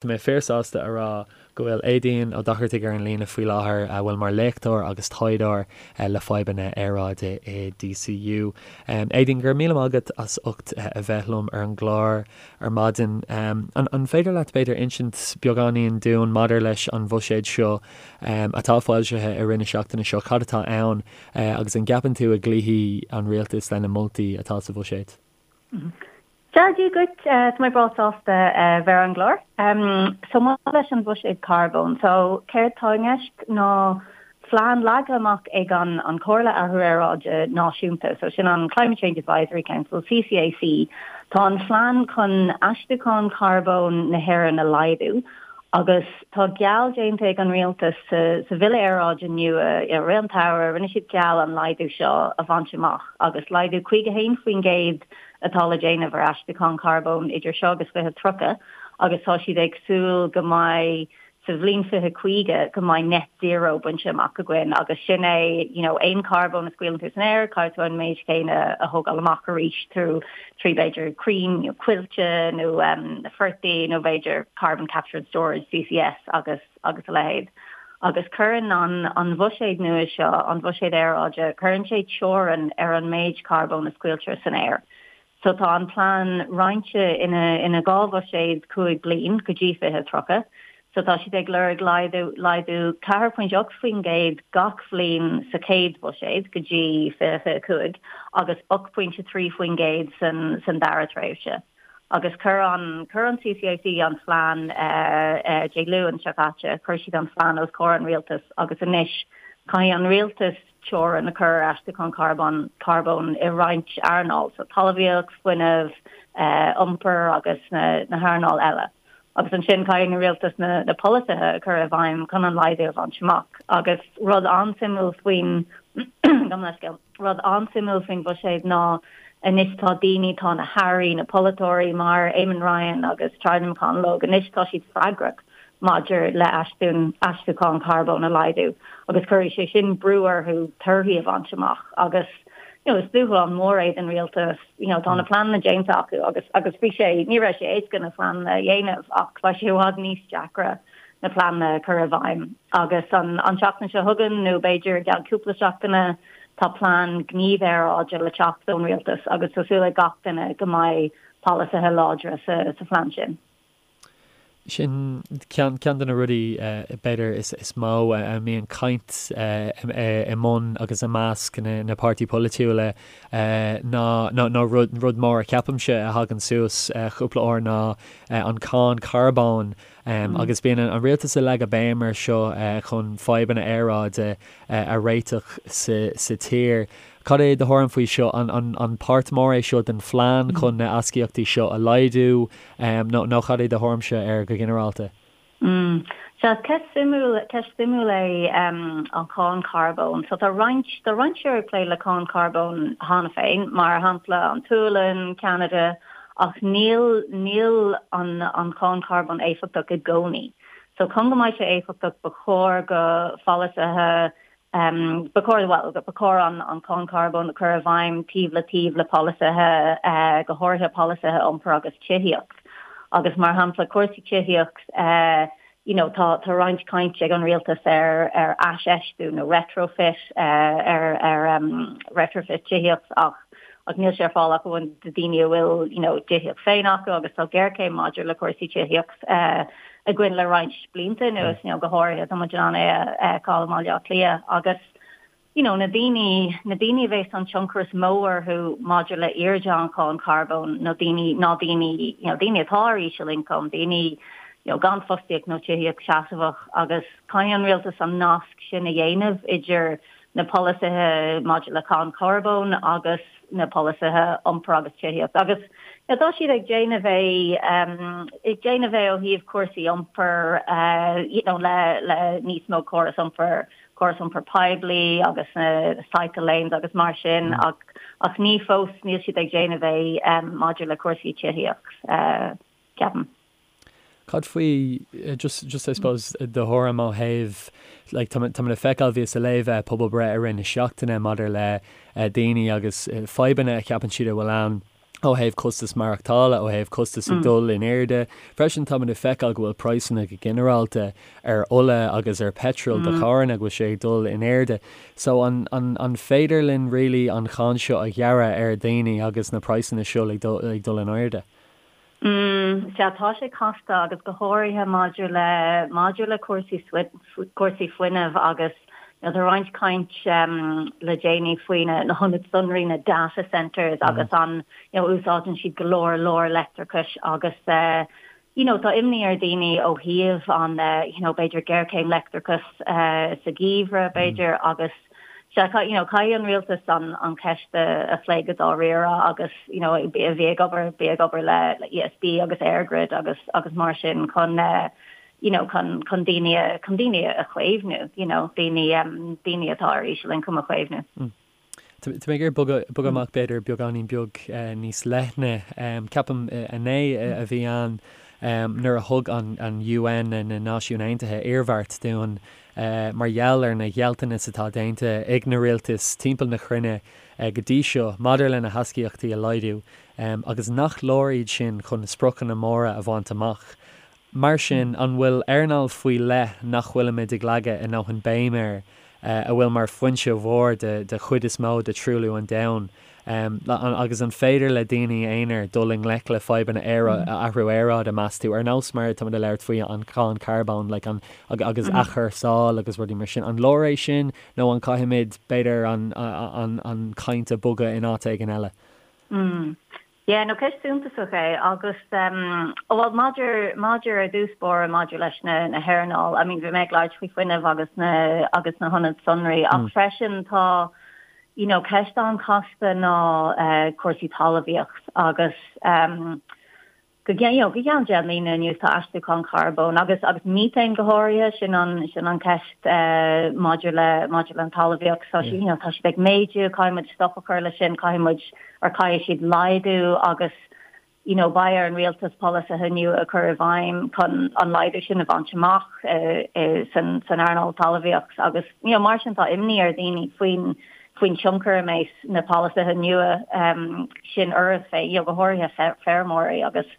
Tá mé fíor-sásta a rá go bhfuil Aedín Ó Dochartaigh ar an líne faoi láthair, a bhfuil mar léachtóir agus taighdeoir le fadhbanna aeráide i DCU. Aedín, go raibh míle maith agat as ucht a bheith liom ar an gclár ar maidin. An féidir leat, b'fhéidir, insint beagáinín dúinn maidir leis an bhuiséad seo atá foilsithe i rith na seachtaine seo, cad atá ann agus an gceapann tú a gcloífidh an rialtas lena moltaí atá sa bhuiséad? Dia duit, tá mé breá sásta bheith ar an gclár. So maidir leis an bhuiséad carbóin, so céard tá i gceist ná plean leagtha amach ag an an Chomhairle Athrú Aeráide Náisiúnta, so sin an Climate Change Advisory Council, CCAC. Tá an phlean chun aistriúchán carbóin na hÉireann a laghdú agus tá geall déanta ag an rialtas sa sa Bhille Aeráide nua i rith an tsamhraidh, rinne siad geall an laghdú seo a bhaint amach agus laghdú 51% atá le déanamh ar aistriúchán carbóin idir seo agus 2030 agus tá siad ag súil go mbeidh sa bhliain 2050 go mbeidh net zero bainte amach againn agus sin é you know aon carbón a scaoileann tú san aer caithfidh tú an méid céanna a thógáil amach arís trú trí b'fhéidir crainn nó coillte nó um, portaigh nó b'fhéidir carbon capture and storage CCS agus agus a leithéid. Agus cuireann an an bhuiséad nua seo, an bhuiséad aeráide, cuireann sé teorainn ar an méid carbóin a scaoiltear san aer. So tá an plean roinnte ina ina 2 bhuiséad 5 bliain go dtí 2030. So tá siad ag lorg laghdú laghdú 4.8% gach bhliain sa chéad bhuiséad go dtí 2025 agus 8.3% san san dara tréimhse. Agus chuir an, chuir an CCAC an phlean Dé Luain seo caite, chuir siad an phlean os comhair an rialtais agus anois caithfidh an rialtas teorainn a chur ar aistriúchán carbóin, carbóin i roinnt earnáil, so talmhaíocht, fuinneamh, iompar agus na, na hearnáil eile. Agus ansin caithfidh an rialtas na, na polasaithe a chur i bhfeidhm chun an laghdú a bhaint amach. Agus rud an-suimiúil faoin, gabh mo leithscéal. Rud an-suimiúil faoin bhuiséad ná anois tá daoine, tá na hairí, na polaiteoirí mar Eamon Ryan agus Charlie McConalogue, anois tá siad freagrach maidir le aistriúchán carbóin a laghdú agus cuirfidh sé sin brú orthu torthaí a bhaint amach agus you know is dúshlán mór é don rialtas, you know tá na pleananna déanta acu agus agus bhí sé, ní raibh sé éasca na pleananna a dhéanamh ach beidh sé i bhfad níos deacra na pleananna a chur i bhfeidhm. Agus an tseachtain seo chugainn, nó b'fhéidir i gceann cúpla seachtaine, tá plean gníomh aeráide le teacht ón rialtas agus tá súil ag gach duine go mbeidh polasaithe láidre sa phlean sin. Sin ceann de na rudaí, b'fhéidir, is mó a mbíonn caint i mbun agus i measc na páirtí polaitiúla ná, nó rud mór a cheapaimse a thagann suas cúpla uair ná an cáin carbóin Agus bíonn an rialtas ag leagadh béim air seo chun fadhbanna aeráide a réiteach sa tír. Cad é do thuairim faoi seo? An páirt mór é seo den phlean chun na astaíochtaí seo a laghdú nó cad é do thuairimse air go ginearálta? Sea, ceist suimiúil, ceist suimiúil é an cháin charbóin. So tá roinnt, tá roinnt tíortha ag plé le cáin charbóin cheana féin, mar shampla an tSualainn, Ceanada, Ach níl, níl an, an cháin charbóin éifeachtach i gcónaí. So chun go mbeidh sé éifeachtach ba chóir go pholasaithe, ba chóir, bhuel, ba chóir an, an cháin charbóin a chur i bhfeidhm taobh le taobh le polasaithe, go háirithe polasaithe iompair agus tithíocht. Agus mar shampla cúrsaí tithíocht, you know tá, tá roinnt caint ag an rialtas ar, ar aisfheistiú nó retrofit, ar, ar retrofit tithíocht ach, ach níl sé ar fáil ach amháin do daoine a bhfuil you know tithíocht féin acu agus tá géarchéim maidir le cúrsaí tithíocht againn le roinnt blianta anuas, you know go háirithe tá muid in ann é a fheiceáil i mBaile Átha Cliath agus you know, na daoine, na daoine a bheas an tionchar is mó orthu maidir le airde an cháin charbóin nó daoine, ná daoine, you know, daoine atá ar íseal-ioncam, daoine, you know, gan fostaíocht nó tithíocht seasmhach agus caithfidh an rialtas an nasc sin a dhéanamh idir na polasaithe maidir le cáin charbóin agus na polasaithe iompair agus tithíocht agus you know, tá siad ag déanamh é, ag déanamh é ó thaobh cúrsaí iompair, you know, le, le níos mó córas iompair córas iompair poiblí agus na cycle lanes agus mar sin ach ach ní fós níl siad ag déanamh é maidir le cúrsaí tithíocht, ceapaim. Cad faoi just just I suppose do thuairim ó thaobh like tá tá mé le feiceáil bhíos ag léamh pobalbhreith i rith na seachtaine maidir le daoine agus fadhbanna a cheapann siad a bhfuil ann. Ó thaobh costas maireachtála, ó thaobh costas ag dul in airde. Freisin táimid ag feiceáil go bhfuil praghsanna go ginearálta ar ola agus ar petrol do charranna go bhfuil sé ag dul in airde. So an an an féidir linn really an cháin seo a ghearradh ar dhaoine agus na praghsanna seo ag dul ag dul in airde? Mm, sea, tá sé casta agus go háirithe maidir le maidir le cúrsaí cúrsaí fuinnimh agus you know, tá roinnt caint le déanaí faoi na na hionaid sonraí, na data centres agus an you know, úsáideann siad go leor leor leictreachais agus eh, you know, tá imní ar dhaoine ó thaobh an eh, you know, b'fhéidir géarchéim leictreachais eh, sa gheimhreadh b'fhéidir agus sea, you know, caithfidh an rialtas an an cheist a phlé go dáiríre agus you know, a bhí ag obair bí ag obair le le ESB agus EirGrid agus agus mar sin chun eh, you know, chun chun daoine chun daoine a chaomhnú, you know, daoine um, daoine atá ar ísealioncam a chaomhnú. Mm. Tá mé ag iarraidh bogadh bogadh amach b'fhéidir beagáinín beag eh, níos leithne. Um, ceapaim eh, inné eh, a bhí ann um, nuair a thug an, an UN na Náisiúin Aontaithe iarmhairt dúinn uh, mar gheall ar na gealltanais atá déanta ag na rialtais timpeall na cruinne uh, go dtí seo maidir lena hastaíochtaí a laghdú um, agus nach leor iad sin chun na spriocanna móra a bhaint amach. Mar sin, an bhfuil earnáil faoi leith nach bhfuilimid ag leagadh a ndóthain béim air, a bhfuil mar foinse mhór de chuid is mó de truailliú an domhain? Agus an féidir le daoine aonair dul i ngleic le fadhbanna athrú aeráide, meas tú, ar nós mar atáimid ag labhairt faoi an cháin carbóin like an agus athchúrsáil agus rudaí mar sin? An leor é sin nó an caithfimid, b'fhéidir, an chaint a bhogadh in áit éigin eile? Yeah, no ceist suntasach é agus um, well maidir maidir ar dtús báire maidir leis na na hearnáil, I mean bhí mé ag labhairt faoi fuinneamh agus na agus na hionaid sonraí ach mm. freisin tá you know ceist an-chasta ná uh, cúrsaí talmhaíocht agus um, Go you know, go ceann 10 mbliana anuas tá aistriúchán carbóin agus agus methane go háirithe, sin an sin an ceist eh, maidir le maidir le an talmhaíocht. So you know, tá siad ag méadú, caithfidh muid stop a chur leis sin, caithfidh muid or caithfidh siad laghdú agus you know, beidh ar an rialtas polasaithe nua a chur i bhfeidhm chun an laghdú sin a bhaint amach eh, eh, san san earnáil talmhaíocht agus you know, mar sin tá imní ar dhaoine faoin faoin tionchar a mbeidh na polasaithe nua sin orthu féin, you know, go háirithe feirmeoirí agus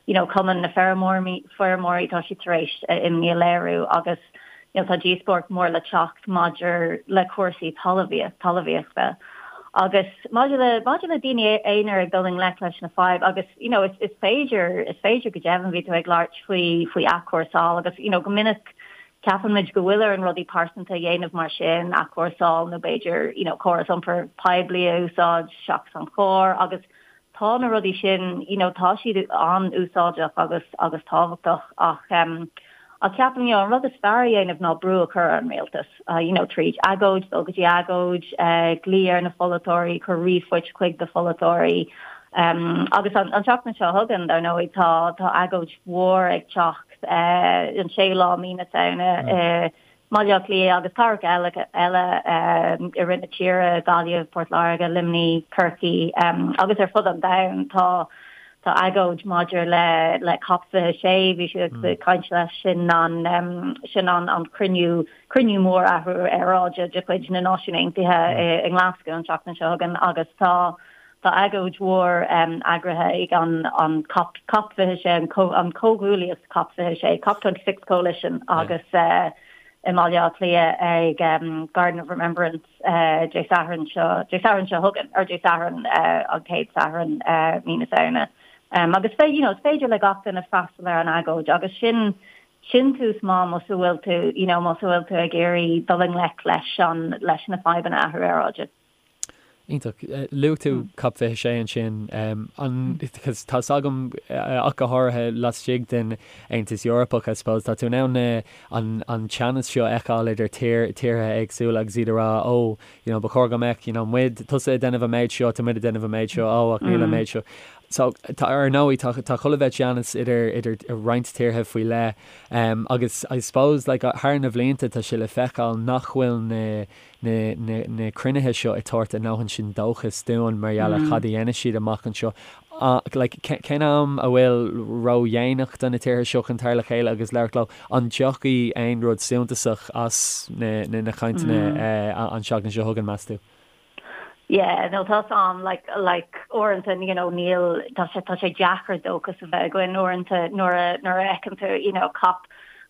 you know, Cumann na Feirmeoirí, tá siad tar éis imní a léiriú agus you know, tá díospóireacht mór le teacht maidir le cúrsaí talmhaíochta. Agus maidir le maidir le daoine aonair ag dul i ngleic leis na fadhb agus you know, is, is féidir is féidir go deimhin bhí tú ag labhairt faoi faoi athchúrsáil agus you know, go minic Ceapann muid go bhfuil orainn rudaí pearsanta a dhéanamh mar sin, athchúrsáil nó b'fhéidir you know córas iompair poiblí a úsáid seachas an carr agus tá na rudaí sin you know tá siad an-úsáideach agus agus tábhachtach ach em ach ceapaim you know an rud is fearr a dhéanamh ná brú a chur ar an rialtas uh, you know tríd agóid, dul go dtí agóid, uh, glaoch ar na pholaiteoirí, cur ríomhphoist chuig do pholaiteoirí um, agus an, an tseachtain seo chugainn dar ndóigh tá tá agóid mhór ag teacht an séú lá mí na Samhna i mBaile Átha Cliath agus cathracha eile eile i rith na tíre, Gaillimh, Port Láirge, Luimnigh, Corcaigh agus ar fud an domhain. Tá tá agóid maidir le le COP 26, bhí siad ag caint leis sin an sin an an cruinniú cruinniú mór athrú aeráide de chuid na Náisiún Aontaithe i nGlasgow an tseachtain seo chugainn agus tá Tá agóid mhór eagraithe ag an COP, COP 26, an Comhghuaillíocht COP 26, COP 26 Coalition, agus i mBaile Átha Cliath ag Garden of Remembrance Dé Sathairn seo, Dé Sathairn seo chugainn, or Dé Sathairn, an chéad Satharn mí na Samhna. Agus you know, is féidir le gach duine freastal ar an agóid agus sin sin tús maith más a bhfuil tú, you know, más a bhfuil tú ag iarraidh dul i ngleic leis an, leis na fadhbanna athrú aeráide. Iontach. Luaigh tú COP 26 ansin. An, cos tá's agam ach go háirithe laistigh den Aontas Eorpach, I suppose, tá tú in ann na, an, an teannas seo a fheiceáil idir tír, tíortha éagsúla agus iad ag rá, oh, you know, ba chóir go mbeadh, you know, muid, tusa ag déanamh an méid seo, tá muid ag déanamh an méid seo, oh, ach níl an méid seo. So, tá, ar ndóigh, tá, tá chuile bheith teannas idir, idir roinnt tíortha faoi leith. Agus I suppose, like, thar na bhlianta tá sé le feiceáil nach bhfuil na, na cruinnithe seo ag tabhairt a ndóthain sin dóchas dúinn mar gheall ar cad a dhéanfaidh siad amach anseo. Like, cén am a bhfuil ródhéanach do na tíortha seo chun tar le chéile agus labhairt leo? An dtiocfaidh aon rud suntasach as na cainteanna an tseachtain seo chugainn, meas tú? Yeah, no tá's a'm, like, like, uaireanta, you know, níl, tá sé, tá sé deacair dóchas a bheith againn uaireanta nuair a, nuair a fheiceann tú, you know, COP,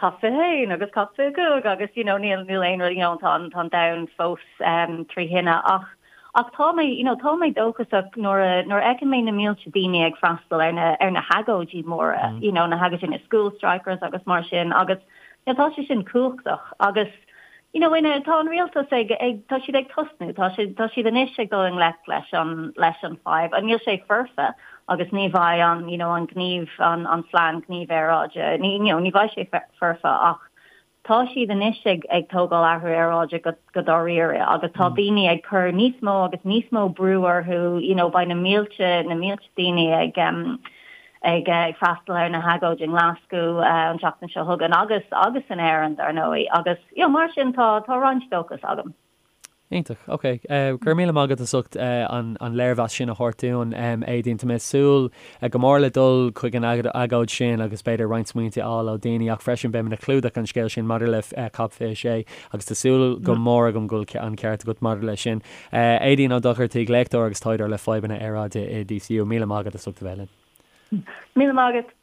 COP 21 agus COP 25 agus, you know, níl, níl aon rud, you know, tá an, tá an domhan fós um, trí thine ach, ach tá mé, you know, tá mé dóchasach nuair a, nuair a fheiceann mé na mílte daoine ag freastal ar na, ar na hagóidí móra, mm. you know, na hagóidí na school strikers agus mar sin agus, you know, tá sé sin cumhachtach agus, You know, ina, tá an rialtas ag, ag, tá siad ag tosnú, tá siad, tá siad anois ag dul i ngleic leis an, leis an fadhb. Níl sé foirfe agus ní bheidh an, you know, an gníomh, an, an phlean gníomh aeráide, ní, you know, ní bheidh sé foirfe ach tá siad anois ag, ag tógáil athrú aeráide go, go dáiríre agus tá daoine ag cur níos mó agus níos mó brú orthu, you know, beidh na mílte, na mílte daoine ag, em, ag freastal ar na hagóidí i nGlaschú an tseachtain seo chugainn agus agus in Éirinn dar ndóigh agus you know mar sin tá tá roinnt dóchas agam. Iontach. Ok. Go raibh míle maith agat as ucht an léirmheas sin a thabhairt dúinn, Aedín. Tá mé ag súil go mór le dul chuig an agóid sin agus b'fhéidir roinnt smaointe a fháil ó daoine ach freisin beidh mé ag clúdach an scéil sin maidir le COP 26 agus tá súil go mór agam go bhfuil an ceart agat maidir leis sin. Aedín Ó Dochartaigh, léachtóir agus taighdeoir le fadhbanna aeráide i DCU. Míle maith agat as ucht a bheith linn. Míle maith agat.